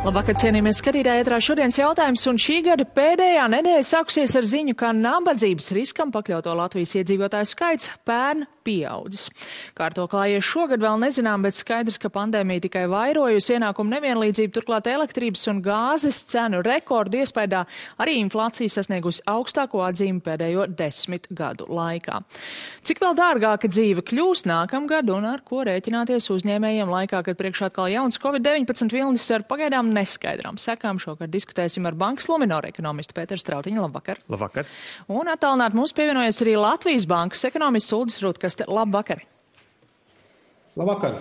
Labvakar, cienījamies skatītāji, ētrā šodienas jautājums, un šī gada pēdējā nedēļa sākusies ar ziņu, ka nabadzības riskam pakļauto Latvijas iedzīvotāju skaits pērn pieaudzis. Kā ar to klājies šogad vēl nezinām, bet skaidrs, ka pandēmija tikai vairojusi ienākumu nevienlīdzību, turklāt elektrības un gāzes cenu rekordu iespējā arī inflācija sasniegusi augstāko atzīmi pēdējo 10 gadu laikā. Cik vēl dārgāka dzīve kļūs nākamgad un ar ko rēķināties uzņēmējiem laikā, kad priekšā atkal jauns Covid-19 vilnis ar pagaidām neskaidrām sekām. Šogad diskutēsim ar Bankas Luminor ekonomistu Pēteru Strautiņu. Labvakar. Labvakar. Un attālināt mums pievienojas arī Latvijas Bankas ekonomists Uldis Rutkaste. Labvakar. Labvakar.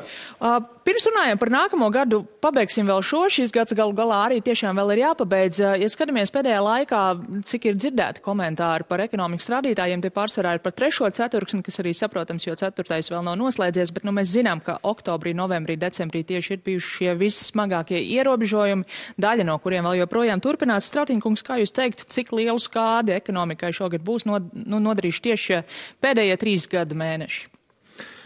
Pirms runājam par nākamo gadu, pabeigsim vēl šo. Šis gads galu galā arī tiešām vēl ir jāpabeidz. Ja skatāmies pēdējā laikā, cik ir dzirdēti komentāri par ekonomikas rādītājiem, tie pārsvarā ir par 3. ceturksni, kas arī saprotams, jo 4. vēl nav noslēdzies, bet mēs zinām, ka oktobrī, novembrī, decembrī tieši ir bijuši šie vissmagākie ierobežojumi, daļa no kuriem vēl joprojām turpinās. Strautiņkungs, kā jūs teiktu, cik lielu skādi ekonomikai šogad būs nodarījuši tieši pēdējie 3 gadu mēneši?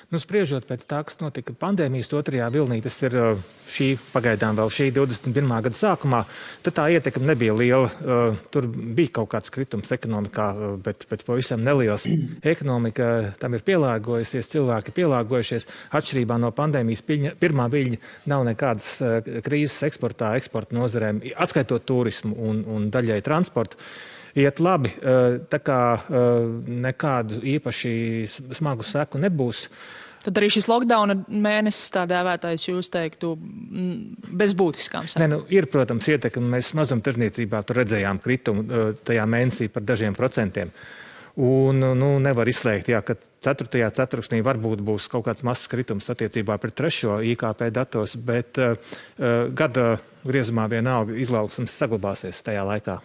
Spriežot pēc tā, kas notika pandēmijas 2. vilnī, tas ir pagaidām vēl šī 21. gada sākumā, tad tā ietekme nebija liela. Tur bija kaut kāds kritums ekonomikā, bet pavisam neliels. Ekonomika tam ir pielāgojusies, cilvēki pielāgojušies. Atšķirībā no pandēmijas pirmā viļņa nav nekādas krīzes eksporta nozarēm, atskaitot turismu un daļai transportu. Iet labi, tā kā nekādu īpaši smagu seku nebūs. Tad arī šis lockdowna mēnesis tā dēvētais, jūs teiktu, bez būtiskām sekām? Ir, protams, ietekme. Mēs mazumtirdzniecībā tur redzējām kritumu tajā mēnesī par dažiem procentiem. Un nevar izslēgt, ka 4. ceturksnī varbūt būs kaut kāds mazs kritums attiecībā pret 3. IKP datos, bet gada griezumā vienalga izaugsmes saglabāsies tajā laikā.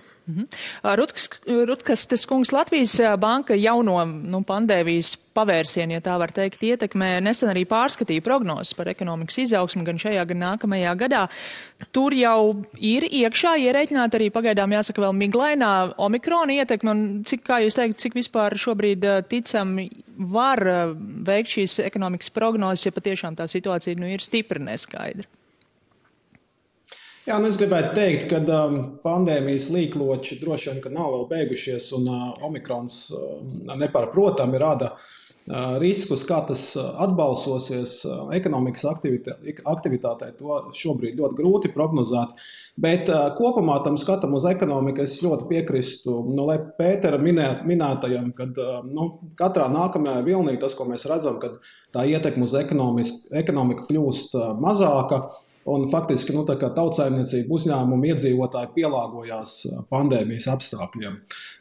Rutkastes kungs, Latvijas banka jauno pandēmijas pavērsienu, ja tā var teikt, ietekmē nesen arī pārskatīja prognozes par ekonomikas izaugsmu gan šajā, gan nākamajā gadā. Tur jau ir iekšā ierēķināta arī pagaidām, jāsaka, vēl miglainā omikrona ietekme, un kā jūs teikt, cik vispār šobrīd ticami var veikt šīs ekonomikas prognozes, ja patiešām tā situācija ir stipri neskaidra? Jā, es gribētu teikt, ka pandēmijas līkloči droši vien, ka nav vēl beigušies, un omikrons nepārprotami rada riskus, kā tas atbalsosies ekonomikas aktivitātei. To šobrīd ļoti grūti prognozēt, bet kopumā tam skatam uz ekonomiku es ļoti piekristu Pētera minētajam, kad katrā nākamajā vilnī tas, ko mēs redzam, kad tā ietekme uz ekonomiku kļūst mazāka. Un faktiski tautsaimniecība uzņēmumi iedzīvotāji pielāgojās pandēmijas apstākļiem.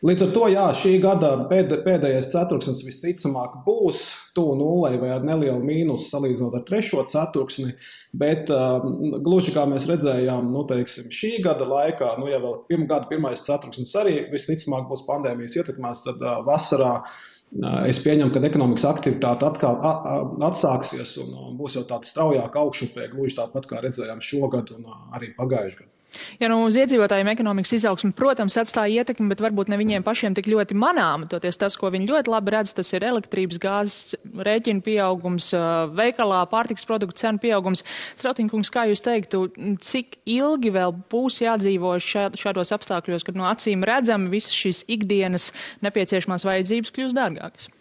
Līdz ar to, šī gada pēdējais ceturksnis visticamāk būs tuvu nullei vai ar nelielu mīnusu salīdzinot ar 3. ceturksni, bet gluži kā mēs redzējām, šī gada laikā, ja vēl gada 1. ceturksnis arī visticamāk būs pandēmijas ietekmēs, tad vasarā es pieņemu, ka ekonomikas aktivitāte atkal atsāksies un būs jau tāda straujāka augšupē, gluži tāpat kā redzējām šogad un arī pagājušajā gadā. Ja uz iedzīvotājiem ekonomikas izaugsme, protams, atstāja ietekmi, bet varbūt ne viņiem pašiem tik ļoti manāma. Toties tas, ko viņi ļoti labi redz, tas ir elektrības, gāzes rēķinu pieaugums, veikalā pārtikas produktu cenu pieaugums. Strautiņkungs, kā jūs teiktu, cik ilgi vēl būs jādzīvo šādos apstākļos, kad no acīm redzami visas šīs ikdienas nepieciešamās vajadzības kļūst dārgākas?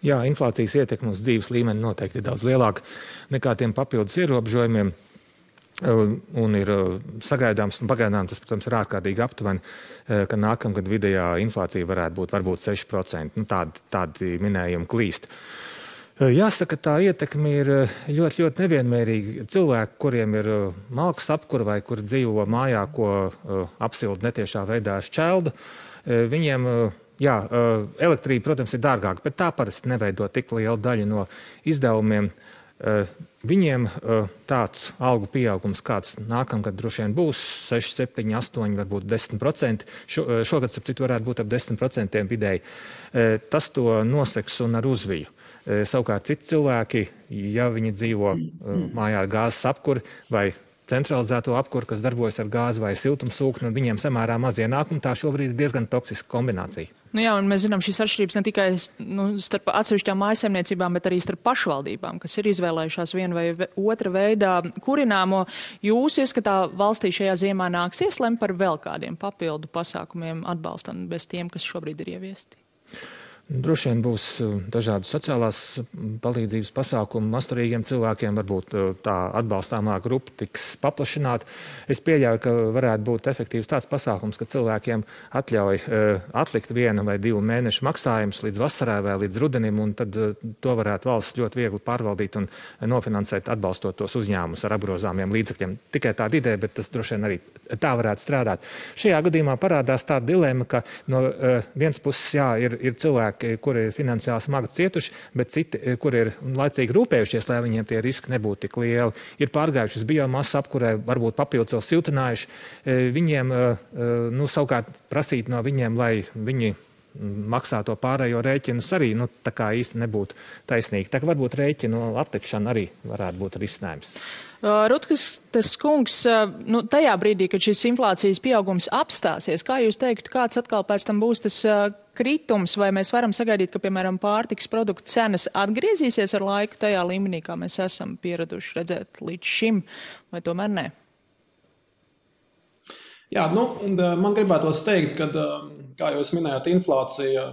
Jā, inflācijas ietekme uz dzīves līmeni noteikti ir daudz lielāka nekā tiem papildus ierobežojumiem. Un ir sagaidāms, un pagaidām tas, protams, ir ārkārtīgi aptuveni, ka nākamgad vidējā inflācija varētu būt varbūt 6%. Tādi minējumi klīst. Jāsaka, tā ietekme ir ļoti, ļoti nevienmērīga. Cilvēki, kuriem ir malkas apkura vai kuri dzīvo mājā, ko apsilda netiešā veidā ar šķeldu, viņiem, elektrība, protams, ir dārgāka, bet tā parasti neveido tik lielu daļu no izdevumiem. Viņiem tāds algu pieaugums, kāds nākamgad droši vien būs 6, 7, 8, varbūt 10%. Šogad, starp citu, varētu būt ap 10% vidēji. Tas to noseks un ar uzviju. Savukārt citi cilvēki, ja viņi dzīvo mājā ar gāzes apkuri vai centralizēto apkuri, kas darbojas ar gāzi vai siltumsūkni, un viņiem samērā maz ienākumu, tā šobrīd ir diezgan toksiska kombinācija. Nu jā, un mēs zinām šīs atšķirības ne tikai starp atsevišķām mājsaimniecībām, bet arī starp pašvaldībām, kas ir izvēlējušās vienu vai otra veidā kurināmo. Jūs ieskatā valstī šajā ziemā nāksies lemt par vēl kādiem papildu pasākumiem atbalstam bez tiem, kas šobrīd ir ieviesti? Droši vien būs dažādas sociālās palīdzības pasākumi masturīgiem cilvēkiem, varbūt tā atbalstāmā grupa tiks paplašināta. Es pieļauju, ka varētu būt efektīvs tāds pasākums, ka cilvēkiem atļauj atlikt 1 vai 2 mēnešu maksājumus līdz vasarai vai līdz rudenim, un tad to varētu valsts ļoti viegli pārvaldīt un nofinansēt, atbalstot tos uzņēmumus ar apgrozāmiem līdzekļiem. Tikai tāda ideja, bet tas droši vien arī tā varētu strādāt. Šajā gadījumā parādās tāda dilema, ka no vienas puses ir cilvēki, kuri ir finansiāli smagi cietuši, bet citi, kuri ir laicīgi rūpējušies, lai viņiem tie riski nebūtu tik lieli. Ir pārgājuši uz biomasu apkurē, varbūt papildus vēl siltinājuši. Viņiem, savukārt prasīt no viņiem, lai viņi maksā to pārējo rēķinus arī, tā kā īsti nebūtu taisnīgi. Tā kā varbūt rēķinu atlikšana arī varētu būt risinājums. Rutkas kungs, tajā brīdī, kad šis inflācijas pieaugums apstāsies, kā jūs teiktu, kāds atkal pēc tam būs tas kritums, vai mēs varam sagaidīt, ka, piemēram, pārtikas produktu cenas atgriezīsies ar laiku tajā līmenī, kā mēs esam pieraduši redzēt līdz šim, vai tomēr nē? Jā, man gribētos teikt, ka, kā jūs minējāt, inflācija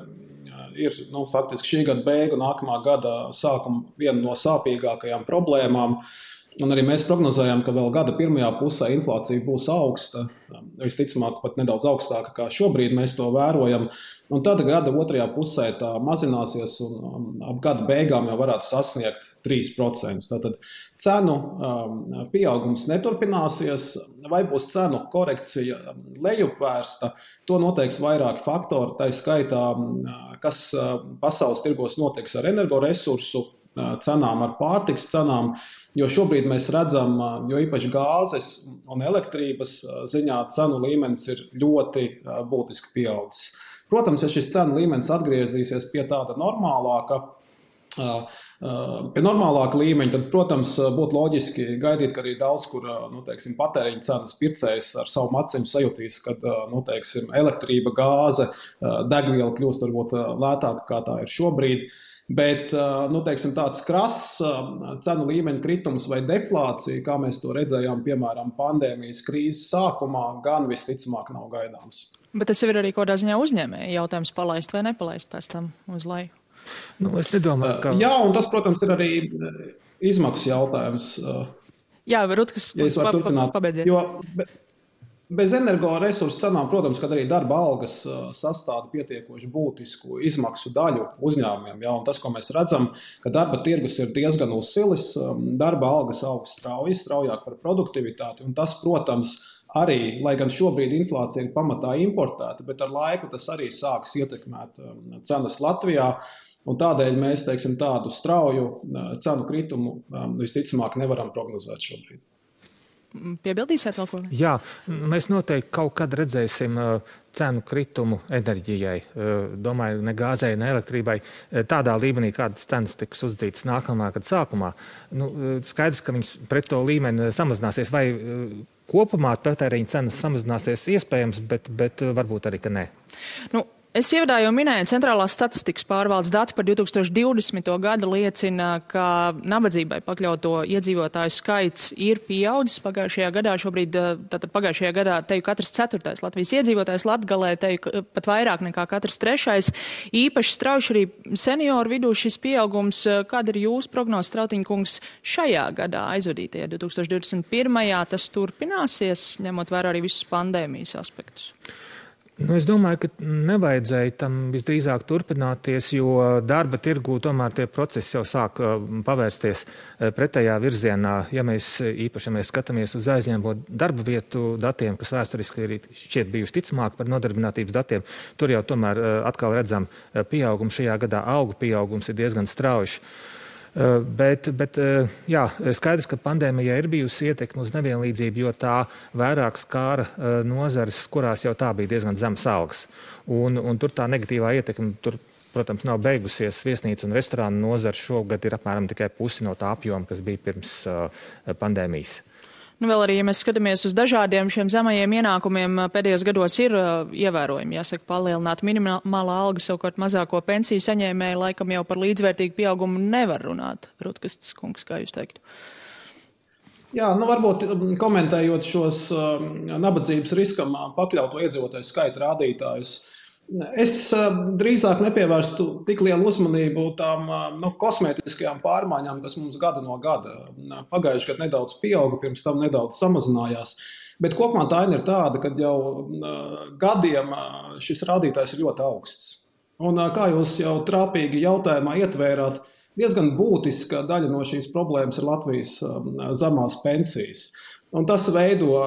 ir faktiski šī gada beigu, nākamā gada sākuma viena no sāpīgākajām problēmām. Un arī mēs prognozējām, ka vēl gada pirmajā pusē inflācija būs augsta, visticamāk pat nedaudz augstāka, kā šobrīd mēs to vērojam. Un tad gada otrajā pusē tā mazināsies un ap gada beigām jau varētu sasniegt 3%. Tātad cenu pieaugums neturpināsies, vai būs cenu korekcija lejupvērsta, to noteiks vairāki faktori, tā skaitā, kas pasaules tirgos notiks ar energoresursu cenām, ar pārtiks cenām, jo šobrīd mēs redzam, jo īpaši gāzes un elektrības ziņā cenu līmenis ir ļoti būtiski pieaudzis. Protams, ja šis cenu līmenis atgriezīsies pie tāda normālāka līmeņa, tad, protams, būtu loģiski gaidīt, ka arī daudz, kur, patēriņa cenas pircējs ar savu acīm sajutīs, kad, elektrība, gāze, degviela kļūst varbūt lētāka, kā tā ir šobrīd. Bet, tāds krass cenu līmeņa kritums vai deflācija, kā mēs to redzējām, piemēram, pandēmijas krīzes sākumā, gan visticamāk nav gaidāms. Bet tas ir arī kādā ziņā uzņēmēja jautājums palaist vai nepalaist pēc tam uz leju? Es nedomāju, ka... Jā, un tas, protams, ir arī izmaksu jautājums. Jā, Rutkas, pabeidziet. Bez energoresursu cenām, protams, kad arī darba algas sastāda pietiekoši būtisku izmaksu daļu uzņēmumiem. Ja, un tas, ko mēs redzam, ka darba tirgus ir diezgan uzsilis, darba algas aug straujāk par produktivitāti. Un tas, protams, arī, lai gan šobrīd inflācija ir pamatā importēta, bet ar laiku tas arī sāks ietekmēt cenas Latvijā. Un tādēļ mēs, tādu strauju cenu kritumu visticamāk nevaram prognozēt šobrīd. Piebildīsiet vēl ko? Jā, mēs noteikti kaut kad redzēsim cenu kritumu enerģijai. Domāju, ne gāzei, ne elektrībai. Tādā līmenī, kādas cenas tiks uzdzītas nākamā gada sākumā. Skaidrs, ka viņas pret to līmeni samazināsies. Vai kopumā patēriņa cenas samazināsies iespējams, bet varbūt arī, ka nē. Es ievadā jau minēju, Centrālās statistikas pārvaldes dati par 2020. gadu liecina, ka nabadzībai pakļauto iedzīvotāju skaits ir pieaudzis pagājušajā gadā. Šobrīd, tātad pagājušajā gadā teju katrs 4. Latvijas iedzīvotājs, Latgalē teju pat vairāk nekā katrs 3. Īpaši strauši arī senioru vidū šis pieaugums. Kāda ir jūsu prognoze, Strautiņkungs, šajā gadā aizvadītajā 2021. Tas turpināsies, ņemot vērā arī visus pandēmijas aspektus? Es domāju, ka nevajadzēja tam visdrīzāk turpināties, jo darba tirgū tomēr tie procesi jau sāk pavērsties pretējā virzienā. Ja mēs skatāmies uz aizņēmamo darba vietu datiem, kas vēsturiski ir šķiet bijuši ticamāk par nodarbinātības datiem, tur jau tomēr atkal redzam pieaugumu. Šajā gadā algu pieaugums ir diezgan strauji. Bet skaidrs, ka pandēmijai ir bijusi ietekme uz nevienlīdzību, jo tā vairāk skāra nozares, kurās jau tā bija diezgan zemas algas. Un tur tā negatīvā ietekme, protams, nav beigusies. Viesnīca un restorānu nozara šogad ir apmēram tikai pusi no tā apjoma, kas bija pirms pandēmijas. Vēl arī, ja mēs skatāmies uz dažādiem šiem zemajiem ienākumiem, pēdējos gados ir ievērojami, jāsaka, palielināta minimālā alga, savukārt mazāko pensiju saņēmēju laikam jau par līdzvērtīgu pieaugumu nevar runāt. Rutkastis kungs, kā jūs teiktu? Jā, varbūt komentējot šos nabadzības riskam pakļauto iedzīvotāju skaita rādītājus, es drīzāk nepievērstu tik lielu uzmanību tām kosmētiskajām pārmaiņām, kas mums gada no gada. Pagājuši gadu nedaudz pieauga, pirms tam nedaudz samazinājās. Bet kopumā tā ir tāda, ka jau gadiem šis rādītājs ir ļoti augsts. Un kā jūs jau trāpīgi jautājumā ietvērāt, diezgan būtiska daļa no šīs problēmas ir Latvijas zemās pensijas. Un tas veido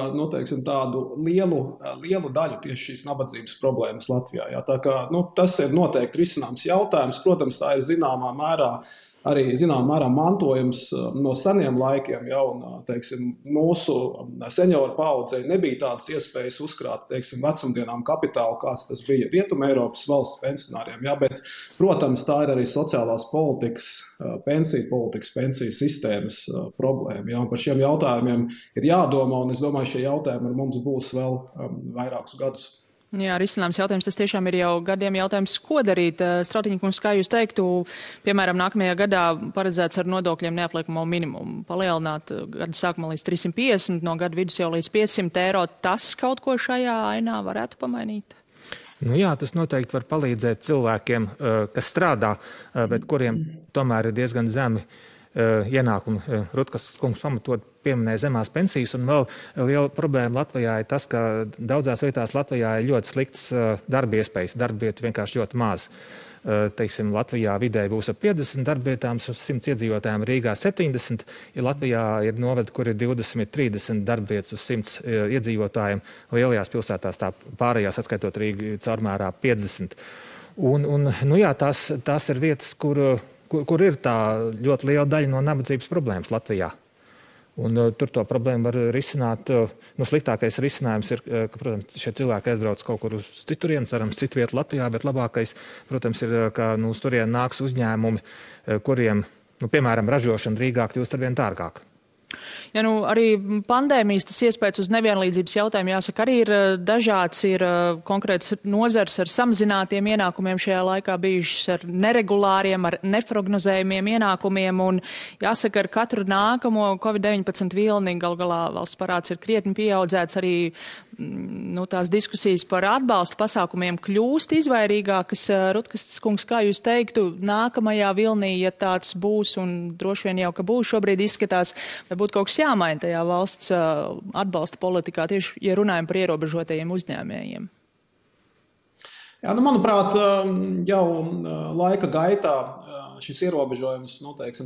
tādu lielu daļu tieši šīs nabadzības problēmas Latvijā. Jā. Tā kā, tas ir noteikti risināms jautājums. Protams, tā ir zināmā mērā mantojums no seniem laikiem. Ja, un, mūsu senioru paudzei nebija tādas iespējas uzkrāt vecumdienām kapitālu, kāds tas bija Rietuma Eiropas valstu pensionāriem. Ja, bet, protams, tā ir arī sociālās politikas, pensiju sistēmas problēma. Ja, un par šiem jautājumiem ir jādomā, un es domāju, šie jautājumi ar mums būs vēl vairākus gadus. Jā, risināms jautājums, tas tiešām ir jau gadiem jautājums, ko darīt. Strautiņa kungs, kā jūs teiktu, piemēram, nākamajā gadā paredzēts ar nodokļiem neapliekamo minimumu palielināt gada sākumā līdz 350, no gada vidus jau līdz 500 eiro. Tas kaut ko šajā ainā varētu pamainīt? Jā, tas noteikti var palīdzēt cilvēkiem, kas strādā, bet kuriem tomēr ir diezgan zemi ienākumi. Rutkas kungs pamatot pieminēja zemās pensijas, un vēl liela problēma Latvijā ir tas, ka daudzās vietās Latvijā ir ļoti slikts darba iespējas, darba vietu vienkārši ļoti maz. Teiksim, Latvijā vidēji būs ap 50 darbvietām uz 100 iedzīvotājiem, Rīgā 70, ja Latvijā ir novadi, kur ir 20-30 darbvietas uz 100 iedzīvotājiem, lielajās pilsētās tā pārējās, atskaitot Rīgu, caurmērā 50. Tās ir vietas, kur ir tā ļoti liela daļa no nabadzības problēmas Latvijā. Un tur to problēmu var risināt. Sliktākais risinājums ir, ka, protams, šie cilvēki aizbrauc kaut kur uz citurien, cerams, citu vietu Latvijā, bet labākais, protams, ir, ka uz turien nāks uzņēmumi, kuriem, piemēram, ražošana Rīgā kļūst arvien dārgāk. Ja arī pandēmijas tas iespējas uz nevienlīdzības jautājumu, jāsaka, arī ir dažāds, ir konkrēts nozars ar samazinātiem ienākumiem šajā laikā bijušas ar neregulāriem, ar neprognozējumiem ienākumiem, un jāsaka, ar katru nākamo Covid-19 vilni galu galā valsts parāds ir krietni pieaudzēts, arī tās diskusijas par atbalsta pasākumiem kļūst izvairīgākas. Rutkastis kungs, kā jūs teiktu, nākamajā vilnī, ja tāds būs, un droši vien jau, ka būs šobrīd izskatās, vai būtu kaut kas jāmaina tajā valsts atbalsta politikā, tieši, ja runājam par ierobežotajiem uzņēmējiem? Jā, manuprāt, jau laika gaitā šis ierobežojums,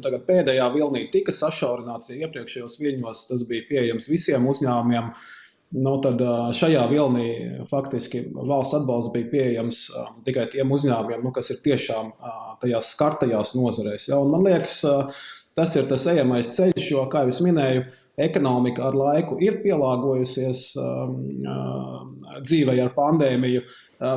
tagad pēdējā vilnī tika sašaurināts, ja iepriekšējos viļņos tas bija pieejams visiem uzņēmumiem. Tad šajā vilnī faktiski valsts atbalsts bija pieejams tikai tiem uzņēmumiem, kas ir tiešām tajās skartajās nozarēs. Ja? Un man liekas, tas ir tas ejamais ceļš, jo, kā jau es minēju, ekonomika ar laiku ir pielāgojusies dzīvei ar pandēmiju,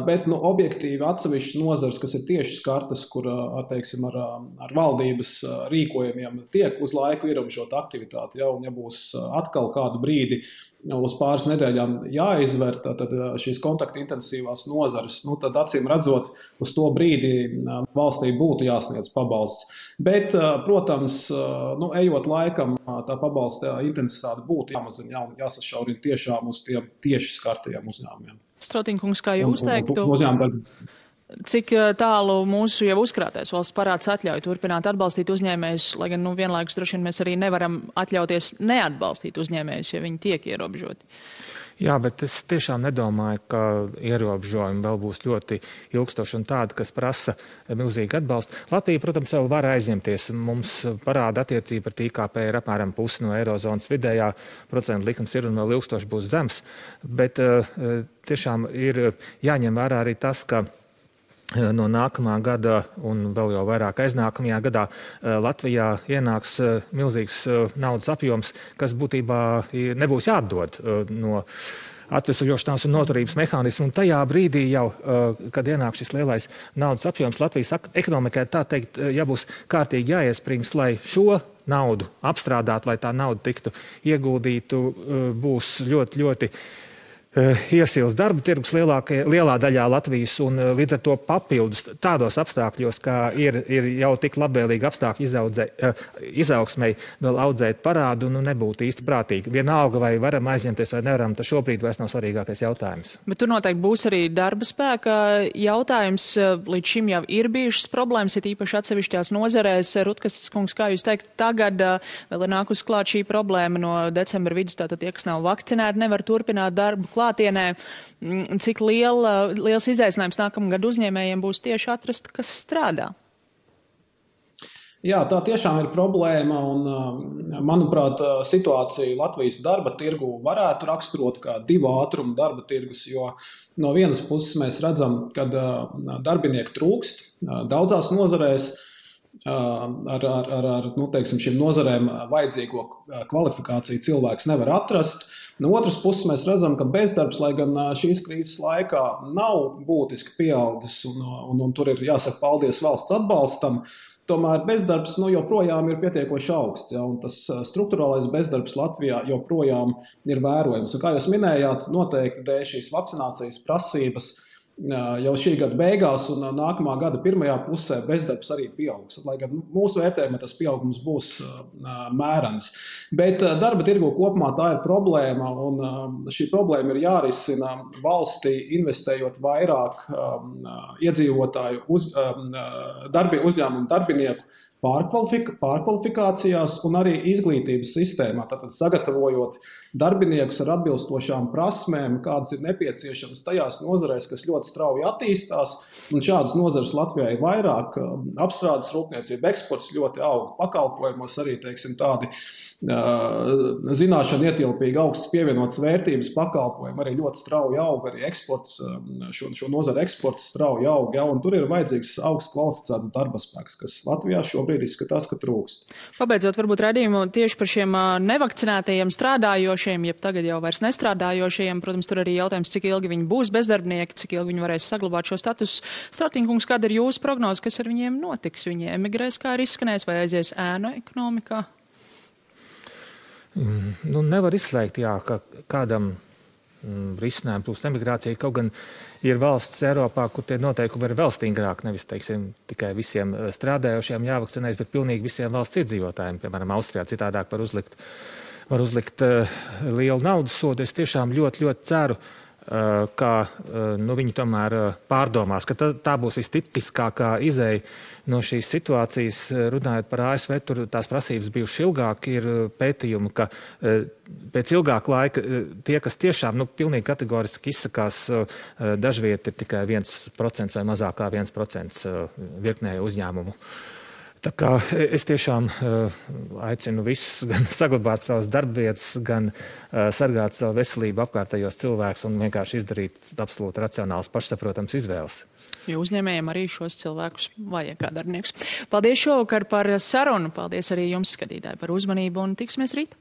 bet objektīvi atsevišķas nozars, kas ir tieši skartas, kur ar valdības rīkojumiem tiek uz laiku ierobežota aktivitāte. Ja, un ja būs atkal kādu brīdi uz pāris nedēļām jāizver tad šīs kontaktintensīvās nozares, tad acīm redzot, uz to brīdi valstī būtu jāsniedz pabalsts. Bet, protams, ejot laikam, tā pabalsta intensitāte būtu jāmazina, jāsašaurina tiešām uz tiem tieši skartajiem uzņēmumiem. Strautiņa kungs, kā jūs teiktu, cik tālu mūsu jau uzkrātais valsts parāds atļauj turpināt atbalstīt uzņēmējus, lai gan vienlaikus droši vien mēs arī nevaram atļauties neatbalstīt uzņēmējus, ja viņi tiek ierobežoti? Jā, bet es tiešām nedomāju, ka ierobežojumi vēl būs ļoti ilgstoši un tādi, kas prasa milzīgu atbalstu. Latvija, protams, vēl var aizņemties. Mums parāda attiecība ar IKP ir apmēram pusi no eirozonas vidējā, procentu likums ir un vēl ilgstoši būs zems, bet tiešām ir jāņem vērā arī tas, ka no nākamā gada un vēl jau vairāk aiznākamajā gadā Latvijā ienāks milzīgs naudas apjoms, kas būtībā nebūs jāatdod no atvesaļošanās un noturības mehānismu. Un tajā brīdī jau, kad ienāk šis lielais naudas apjoms Latvijas ekonomikai, tā teikt, jābūs kārtīgi jāiesprings, lai šo naudu apstrādāt, lai tā nauda tiktu ieguldītu, būs ļoti, ļoti iesils darba tirgus lielā daļā Latvijas, un līdz ar to papildus tādos apstākļos, kā ir jau tik labvēlīgi apstākļi izaugsmei vēl audzēt parādu, nebūtu īsti prātīgi. Vienalga, vai varam aizņemties vai nevaram, tas šobrīd vairs nav svarīgākais jautājums. Bet tur noteikti būs arī darba spēka jautājums. Līdz šim jau ir bijušas problēmas, ir īpaši atsevišķās nozarēs. Rutkas kungs, kā jūs teikt, tagad vēl ir nākus klāt šī problēma no decembra vidus, tātad tie, kas nav vakcinēti, nevar turpināt darbu klātienē. Cik liels izaicinājums nākamgad uzņēmējiem būs tieši atrast, kas strādā? Jā, tā tiešām ir problēma, un, manuprāt, situācija Latvijas darba tirgu varētu raksturot kā divu ātrumu darba tirgus, jo no vienas puses mēs redzam, ka darbinieku trūkst daudzās nozarēs, ar teiksim, šīm nozarēm vajadzīgo kvalifikāciju cilvēks nevar atrast. No otras puses mēs redzam, ka bezdarbs, lai gan šīs krīzes laikā nav būtiski pieaudzis, un tur ir jāsaka paldies valsts atbalstam, tomēr bezdarbs joprojām ir pietiekoši augsts, ja, un tas strukturālais bezdarbs Latvijā joprojām ir vērojams. Un kā jūs minējāt, noteikti dēļ šīs vakcinācijas prasības jau šī gada beigās un nākamā gada pirmajā pusē bezdarbs arī pieaugs. Lai gan mūsu vērtējumā tas pieaugums būs mērens. Bet darba tirgu kopumā tā ir problēma, un šī problēma ir jārisina valstī, investējot vairāk iedzīvotāju uzņēmumu darbinieku pārkvalifikācijās un arī izglītības sistēmā, tātad sagatavojot darbiniekus ar atbilstošām prasmēm, kādas ir nepieciešamas tajās nozarēs, kas ļoti strauji attīstās, un šādas nozares Latvijā ir vairāk, apstrādes rūpniecība, eksports ļoti aug, pakalpojumos arī, teiksim, tādi zināšana ietilpīgi augsts pievienotas vērtības pakalpojumi, arī ļoti strauji aug, arī eksports, šo nozaru eksports strauji aug, ja, un tur ir vajadzīgs augsts kvalificēts darba spēks, kas Latvijā šobrīd izskatās, ka trūkst. Pabeidzot varbūt raidījumu tieši par šiem nevakcinētajiem strādājošiem, jeb tagad jau vairs nestrādājošiem, protams, tur arī jautājums, cik ilgi viņi būs bezdarbnieki, cik ilgi viņi varēs saglabāt šo statusu. Stratīnkungs, kāda ir jūsu prognoze, kas ar viņiem notiks? Viņi emigrēs, kā ir izskanējis, vai aizies ēnu ekonomikā? Nevar izslēgt, jā, ka kādam risinājumu plūst emigrācija, kaut gan ir valsts Eiropā, kur tie noteikumi ir vēl stingrāk, nevis, teiksim, tikai visiem strādājošiem jāvakcinējas, bet pilnīgi visiem valsts iedzīvotājiem, piemēram, Austrijā citādāk var uzlikt lielu naudas sodu. Es tiešām ļoti, ļoti ceru, ka viņi tomēr pārdomās, ka tā būs vistipiskākā izeja no šīs situācijas. Runājot par ASV, tur tās prasības bijušas ilgāk, ir pētījumi, ka pēc ilgāka laika tie, kas tiešām pilnīgi kategoriski izsakās, dažviet ir tikai 1% vai mazāk kā 1% virknē uzņēmumu. Tā kā es tiešām aicinu visus gan saglabāt savas darbvietas, gan sargāt savu veselību, apkārtējos cilvēkus un vienkārši izdarīt absolūti racionāls, pašsaprotams izvēles. Jo uzņēmējiem arī šos cilvēkus vajag kā darbiniekus. Paldies šovakar par sarunu. Paldies arī jums, skatītāji, par uzmanību un tiksimies rīt.